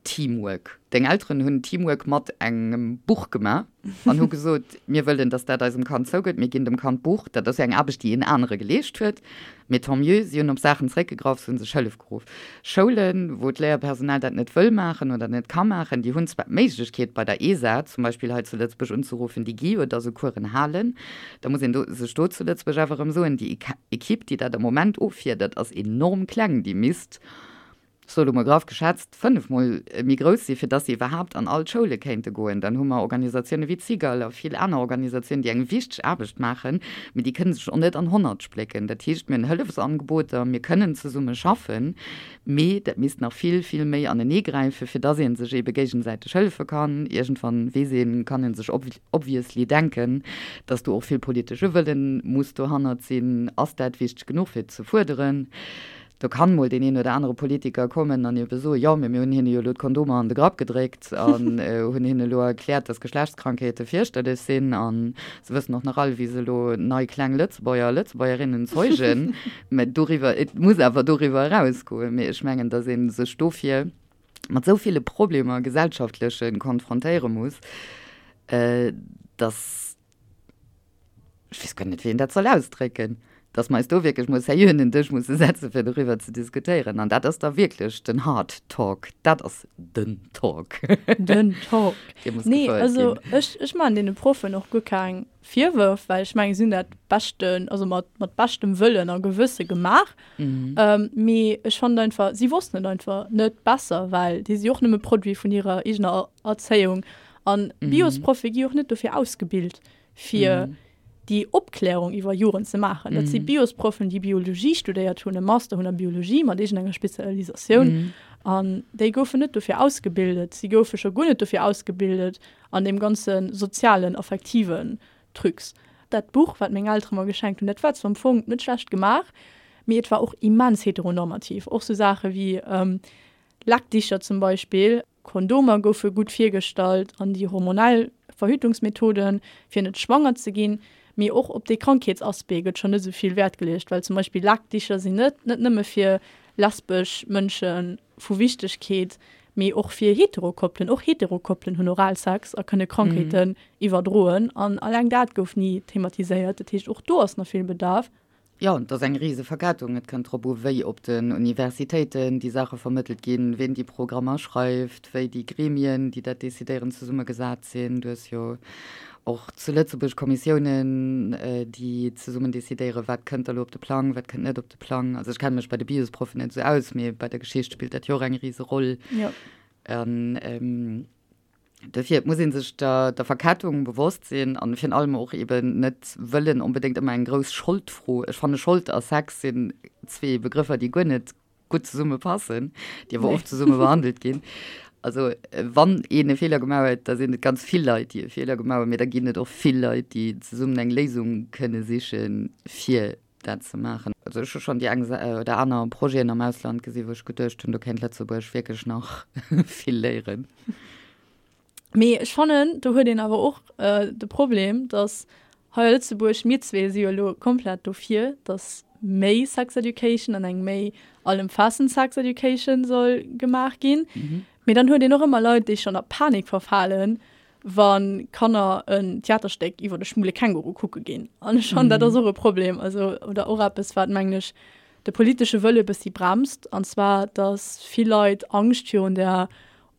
Teamwork. Deng Elteren hunn Teamwork mat engem Buch gemaach an hu gesot, mir wëllen, dass dat eisem Kand zougëtt, mir ginn dem Kand d'Buch. Dat ass jo eng Aarbecht, déi een anere geleescht huet. Mee tant mieux, si hunn op Saachen zeréckgegraff, se hu sech Hëllef geruff. Schoulen, wou d'Léierpersonal dat net wëll maachen oder net ka maachen, déi hunn zwar d'Méiglechkeet bei der ESA zum Beispill hei zu Lëtzebuerg unzeruffen, déi gi jo da sou Coursen halen. Da muss een do sech do zu Lëtzebuerg awer erëm soen, déi Equipe, déi dat am Moment offiedert, ass enorm kleng. Déi misst ech soe lo mol graff geschätzt, fënnefmol méi grouss sinn, fir dass se iwwerhaapt an all d'Schoule kéinte goen. Dann hu mer Organisatioune wéi d'Cigale a vill aner Organisatiounen, déi eng wichteg Aarbecht maachen, mee déi kënne sech och net an 100 splécken. Dat heescht, mir hunn Hëllefsangeboter, mir kënnen zesumme schaffen, mee dat misst nach vill, vill méi aneneegräifen, fir dass ee sech eebe géigesäiteg hëllefe kann. Iergendwann, weess een, kann ee sech obviously denken, dass do och vill politesche Wëllen muss dohannert sinn. Ass dat wichteg genuch, fir et ze fuerderen? Do kann mol deen een oder anere Politiker kommen an ebe soen, jo, mee mir hunn hinne jo elo d'Kondomer an de Grapp gedréckt an hunn hinne elo erkläert, dass Geschlechtskrankheete fierchterlech sinn a se wëssen och nach all, wéi se elo nei kleng Lëtzebuerger a Lëtzebuergerinnen zeugen. Mä doriwwer, et muss awer doriwwer erausgoen. Mee ech mengen, dass ee sech dofir mat esou ville Problemer, gesellschaftlechen, konfrontéiere muss, dass, ech weess guer net, wéi een dat soll ausdrécken, dass mer eis do wierklech mol sérieux un den Dësch musse setzen, fir doriwwer ze diskutéieren. An dat ass da wierklech den Hard Talk. Dat ass den Talk. Den Talk. Dee muss Nee, gefouert also ginn. ech, ech maachen deene Proffen och guer keng Virwërf, well ech mengen, si hunn dat beschten, also mat, mat beschtem Wëllen a Gewësse gemaach. Mee ech fannen einfach, si wossten et einfach net besser, well déi si och nëmme Produit vun hirer eegener Erzéiung. An Biosproffe gi och net dofir ausgebilt, fir déi Opklärung iwwer Joren ze maachen. Dat si Biosproffen, déi Biologie studéiert hunn, e Master hunn a Biologie mat iergendenger Spezialisatioun. An déi goufen net dofir ausgebildet. Si goufe scho guer net dofir ausgebildet an deem ganze sozialen, affektiven Trucs. Dat Buch, wat meng Eltere mer geschenkt hunn, dat war zwar am Fong net schlecht gemaach, mee et war och immens heteronormativ. Och sou Saache wéi Lackdicher zum Beispill. Kondomer goufe gutt virgestallt an déi hormonell Verhütungsmethoden, fir net schwanger ze ginn. Mee och op dee Krankheetsaspect gëtt schonn net esou vill Wäert geleecht, well zum Beispill Lackdicher sinn net net nëmme fir lesbesch Mënsche vu Wichtegkeet, Mee och fir Heterokoppelen, och Heterokoppelen hunn Oralsex a kënne Krankheeten iwwerdroen an alleng dat gouf ni thematiséiert. Dat heescht, och do ass nach vill Bedarf. Jo, et ass eng rise Verkettung. Et kënnt drop u wéi op den Universitéiten déi Saache vermëttelt ginn, ween déi Programmer schreift, wéi déi Gremien, déi dat decidéieren, zesummegesat sinn. Du hues jo och zu Lëtzebuerg Kommissiounen, déi zesummen decidéieren, wat kënnt da lo op de Plang, wat kënnt net op de Plang. Also ech kenne mech bei de Biosproffen net esou aus, mee bei der Geschicht spillt dat jo och eng rise Roll. An Dofir, et muss ee sech der, der Verkettung bewosst sinn an virun allem och eben net wëllen onbedéngt ëmmer eng grouss Scholdfro. Ech fanne Schold a Sex sinn zwee Begrëffer, déi guer net gutt zesumme passen, déi awer oft zesumme behandelt ginn. Also wann een e Feeler gemaach huet, da sinn et ganz vill Leit, déi e Feeler gemaach hunn, mee da ginn et och vill Leit, déi zesummen eng Léisung kënne sichen, fir dat ze maachen. Also ech hu schonn déi eng oder aner Projeten am Ausland gesi wou ech geduecht hunn, do kéint Lëtzebuerg wierklech nach vill léieren. Mee ech fannen, do huet een awer och de Problem, datt hei a Lëtzebuerg, mir zwee si jo elo komplett dofir, datt méi Sex Education an eng méi allëmfaassend Sex Education soll gemaach ginn. Mee dann huet een och ëmmer Leit, déi schonn a Panik verfalen, wa Kanner en Theaterstéck iwwer de schwule Känguru kucke ginn. An ech fannen, dat ass och e Problem, also oder och eppes, wat, mengen ech, de politesche Wëlle e bëssi bremst, an zwar, datt vill Leit Angscht virun der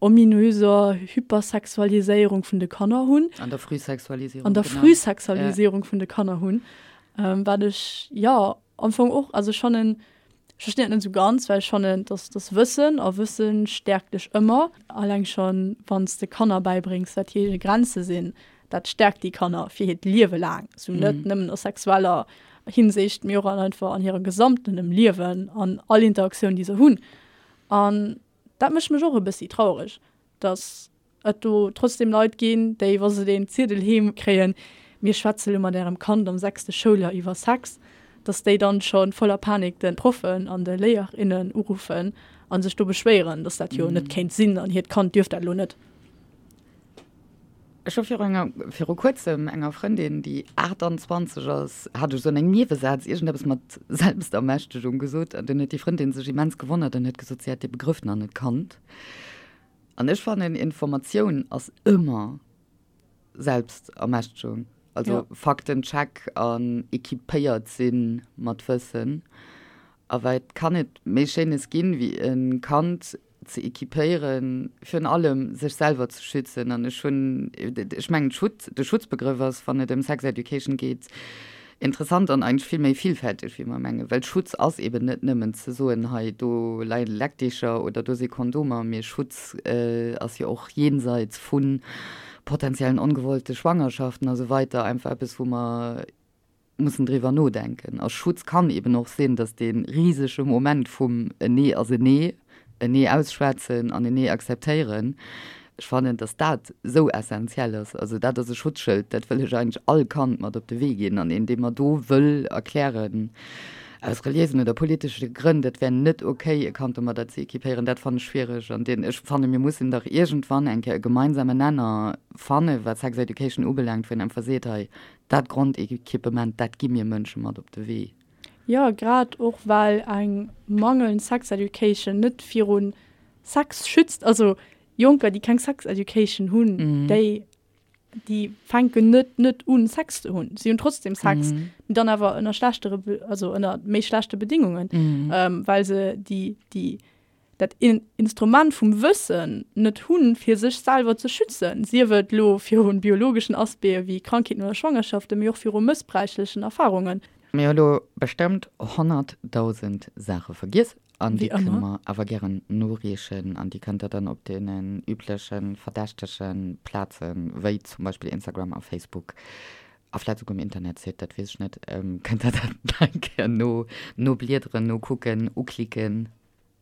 ominöser Hypersexualiséierung vun de Kanner hunn. An der Frühsexualisierung, An der genau. Frühsexualisierung vun de Kanner hunn, wat ech, jo, am Fong och, also ech fannen, ech verstinn dat net esou ganz, well ech fannen, dass dass Wëssen a Wësse stäerkt dech ëmmer. Alleng schonn, wann s de Kanner bäibréngs, wat hir Grenze sinn, dat stäerkt déi Kanner fir hiert Liewe laang, sou net nëmmen a sexueller Hinsicht, mee och an einfach an hirem gesamtenem Liewen, an all Interaktioun, déi se hunn. An dat mécht mech och e bëssi traureg, dass et do trotzdem Leit ginn, déi, wa se deen Ziedel heem kréien, mir schwätze lo mat ärem Kand am sechste Schouljoer iwwer Sex, dass déi dann scho voller Panik de Proffen an de Léierinnen uruffen a sech do beschwéieren, dass dat jo net kéint sinn an hiert Kand dierft dat lo net. Ech hu viru enger, viru kuerzem enger Frëndin, déi 28 ass, hat ech esou an engem Niewesaz iergendeppes mat Selbstermächtegung gesot an dunn huet déi Frëndin sech immens gewonnert an huet gesot, si hätt dee Begrëff nach net kannt. An ech fannen, Informatioun ass ëmmer Selbstermächtegung. Also ja. Faktencheck an equipéiert si mat Wëssen. A wat kann et méi Schéines ginn, wéi e Kand ze equipéieren, virun allem sech selwer ze schützen. An ech hunn, ech mengen, Schutz, de Schutzbegrëff ass, wann et ëm Sex Education geet, Interessant an eigentlech vill méi villfälteg wéi mer mengen, well Schutz ass eben net nëmmen ze soen, hei do leie Leckdicher oder do si Kondomer, mee Schutz ass jo och jenseits vu potenziellen ongewollte Schwangerschaften a sou weiter einfach eppes wou mer mussen driwwer nodenken. A Schutz kann eben och sinn, datt dee risege Moment vum en Nee ass en Nee, en Nee ausschwätzen an en Nee akzeptéieren, Ech fannen, dass dat esou essenziell ass. Also dat ass e Schutzschëld, dat wëll ech eigentlech all Kand mat op de Wee ginn. An een, dee mer do wëll erklären, aus reliéisen oder politesche Grënn, dat wär net okay, e Kand domadder ze équipéieren, dat fannen ech schwiereg. An deen, ech fannen, mir mussen dach iergendwann eng Kéier e gemeinsamen Nenner fannen, wat Sex Education ubelaangt, wou een einfach seet, hei, dat Grondequipement, dat gi mir Mënsche mat op de Wee. Jo, grad och well eng mangelnd Sex Education net viru Sex schützt. Also Jonker, déi keng Sex Education hunn, déi, déi fänken net net un Sex ze hunn. Si hunn trotzdem Sex, mee dann awer ënner schlechtere, also ënner méi schlechte Bedingungen, well se déi, déi, dat Instrument vum Wëssen net hunn, fir sech selwer ze schützen, sief et elo virun biologeschen Aspecte wéi Krankheeten oder Schwangerschaften, mee och viru mëssbräichlechen Erfarungen. Mir hu lo bestëmmt 100.000 Saache vergiess an déi kënne mer awer gären noreechen an déi kënnt der dann op deenen übleche verdächtege Plazen, wéi zum Beispill Instagram a Facebook a vläit souguer um Internetsite, dat weess ech net, kënnt der dat nach eng Kéier no nobliederen, nokucken, uklicken.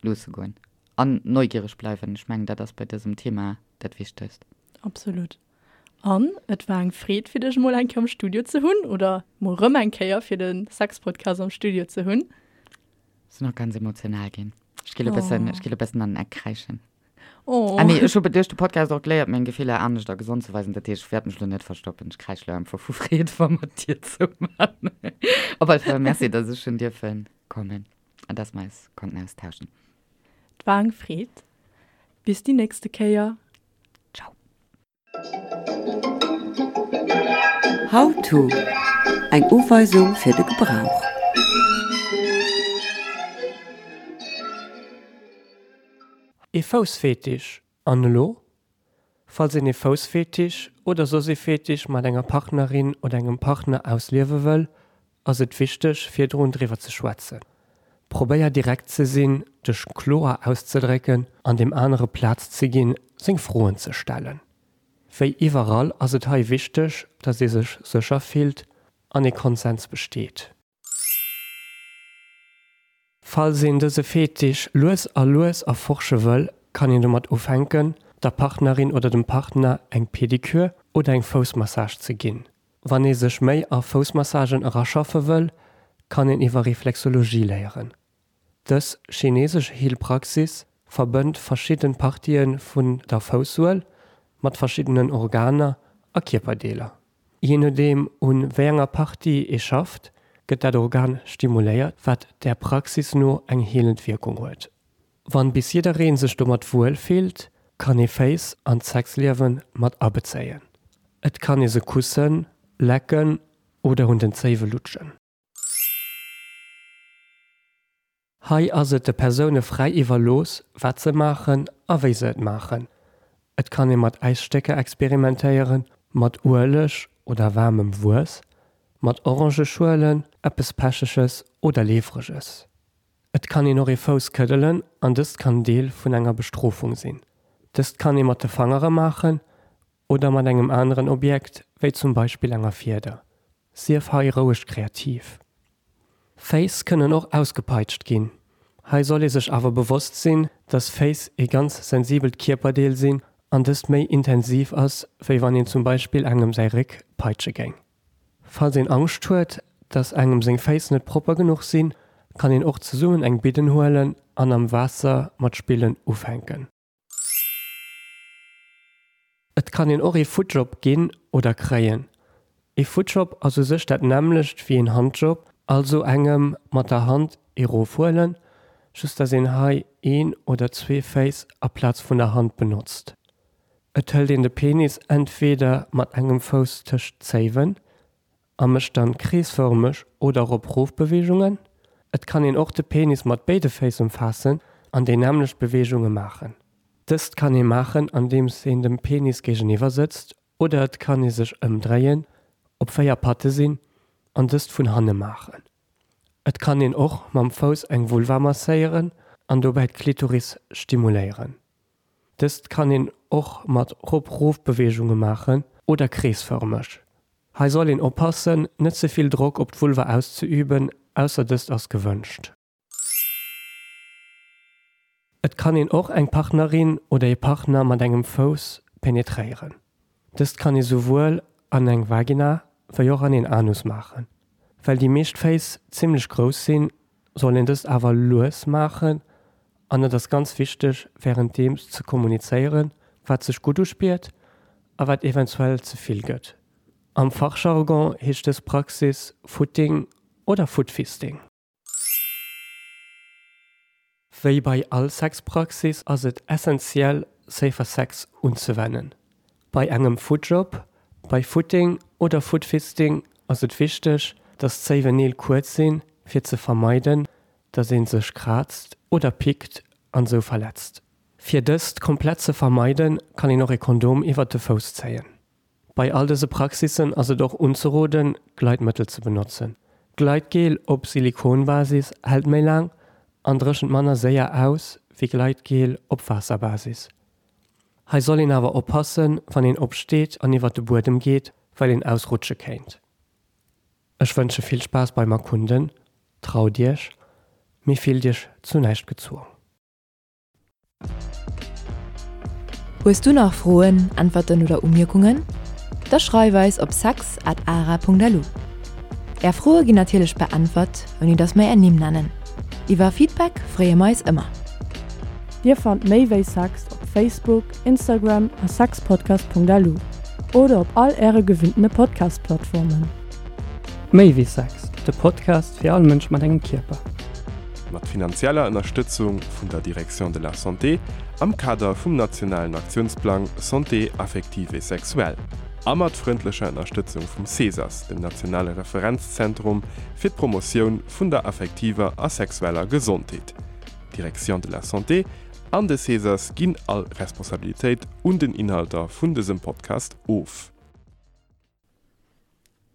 Loosse goen. An neugiereg bleiwen. Ech mengen, dat ass bei dësem Thema dat Wichtegst. Absolut. An et war eng Freed, fir dech mol eng Kéier am Studio ze hunn, oder mol rëm eng Kéier fir de Sexpodcast am Studio ze hunn. Sinn och ganz emotional ginn. Ech gi lo bëssen, ech gi lo bëssen an den Eck kräischen. Oh. Ah nee, ech hu duerch de Podcast och geléiert, meng Gefiller anescht a gesond ze weisen. Dat heescht, ech wäert mech lo net verstoppen. Ech kräisch lo einfach vu Freed, wa mer d'Dier zouman. Op alle Fall merci, dass ech hunn dierfen kommen. An dass mer eis konnten austauschen. Et war eng Freed. Bis déi nächste Kéier. Ciao. How to, Eng Uweisung fir de Gebrauch. Ee Foussfetisch, an elo? Falls een ee Foussfetisch oder soss ee Fetisch mat enger Partnerin oder engem Partner ausliewe wëll, ass et wichteg virdrun driwwer ze schwätzen. Probéier direkt ze sinn, dech kloer auszedrécken an deem anere Plaz ze ginn, seng Froen ze stellen. Wéi iwwerall ass et hei wichteg, dass ee sech sécher fillt an ee Konsens besteet. Falls een dëse Fetisch lues a lues erforsche wëll, kann een domat ufänken, der Partnerin oder dem Partner eng Pedikür oder eng Foussmassage ze ginn. Wann ee sech méi a Foussmassagen eraschaffe wëll, kann een iwwer Reflexologie léieren. Dës chinesesch Heelpraxis verbënnt verschidden Partië vun der Foussuel mat verschiddenen Organer a Kierperdeeler. Jee nodeem un wéi enger Partie ee schafft, gëtt dat Organ stimuléiert, wat der Praxis no eng heelend Wierkung huet. Wann bis jiddereen sech domat wuel fillt, kann ee Féiss an d'Sexliewen mat abezéien. Et kann ee se kussen, lecken oder un den Zéiwe lutschen. Hei ass et de Persoune fräi iwwerlooss, wat se maachen a wéi se et maachen. Et kann ee mat Äisstécker experimentéieren, mat Ueleg oder waarmem Wuess, mat Orangeschuelen, eppes Pecheges oder Leefreges. Et kann een och ee Fouss këddelen an dëst kann Deel vun enger Bestrofung sinn. Dëst kann ee mat de Fangere maachen oder mat engem aneren Objekt, wéi zum Beispill enger Fieder. Sief hei roueg kreativ. Féiss kënnen och ausgepeitscht ginn. Hei soll ee sech awer bewosst sinn, dass Féiss ee ganz sensibelt Kierperdeel sinn an dëst méi intensiv ass, wéi wann een zum Beispill engem säi Réck peitsche géing. Falls een Angscht huet, dass engem seng Féiss net propper genuch sinn, kann een och zesummen eng Bidden huelen an am Waasser mat spillen ufänken. Et kann een och ee Footjob ginn oder kréien. Ee Footjob ass u sech dat nämmlecht wéi een Handjob, also engem mat der Hand ee rofhuelen, just dass een hei een oder zwee Féiss aplaz vun der Hand benotzt. Et hëlt een de Penis entweder mat engem Fouss tëscht d'Zéiwen a mécht dann kreesfërmeg oder Rop-Rof-Beweegungen. Et kann een och de Penis mat béide Féiss ëmfaassen an déi nämmlecht Beweegunge maachen. Dëst kann ee maachen andeems een dem Penis géigeniwwer sëtzt oder et kann ee sech ëmdréien, op 4 Patte sinn an dëst vun hanne maachen. Et kann een och mam Fouss eng Vulva masséieren an dobäi d'Klitoris stimuléieren. Dëst kann een och mat Rop-Rof-Beweegunge maachen oder kreesfërmeg. Hei soll een oppassen, net ze vill Drock op d'Vulva auszeüben, ausser dëst ass gewënscht. Et kann een och eng Partnerin oder ee Partner mat engem Fouss penetréieren. Dëst kann ee souwuel an eng Vagina wéi och an een Anus maachen. Well déi meescht Féiss zimmlech grouss sinn, soll een dëst awer lues maachen an et ass ganz wichteg wärenddeems ze kommunizéieren, wat sech gutt uspiert a wat eventuell ze vill gëtt. Am Fachjargon heescht dës Praxis Footing oder Footfisting. Wéi bei all Sexpraxis ass et essentiell Safer Sex unzewennen. Bei engem Footjob, bei Footing oder Footfisting ass et wichteg, dass d'Zéiwen Neel kuerz sinn, fir ze vermeiden, dass een sech kraazt oder pickt an sou verletzt. Fir dëst komplett ze vermeiden, kann een och e Kondom iwwert de Fouss zéien. Bei all dëse Praxissen ass et och unzeroden, Gleitmëttel ze benotzen. Gleitgel op Silikonbasis hält méi laang an dréchent manner séier aus wéi Gleitgel op Waasserbasis. Hei soll een awer oppassen, wann een opsteet an iwwert de Buedem geet, well een ausrutsche kéint. Ech wënsche vill Spaass beim Erkunden, traut iech, mee fillt iech zu näischt gezwong. Hues du nach Froen, Äntwerten oder Umierkungen? Da schreif eis op sex at ara.lu. Är Froe ginn natierlech beäntwert, ouni dass mer är Nimm nennen. Iwwer Feedback freeë mer eis ëmmer. Dir fannt méi wéi Sex op Facebook, Instagram a sexpodcast.lu oder op all äre gewinntene Podcast-Plattformen. Méi wéi Sex, de Podcast fir all Mënsch mat engem Kierper. Mat finanzieller Ënnerstëtzung vun der Direction de la Santé am Kader vum nationalen Aktiounsplang Santé affective et sexuelle a mat frëndlecher Ënnerstëtzung vum CESAS, dem nationale Referenzzentrum fir d'Promotioun vun der affektiver a sexueller Gesondheet. D'Direction de la Santé an de CESAS ginn all Responsabilitéit un den Inhalter vun dësem Podcast of.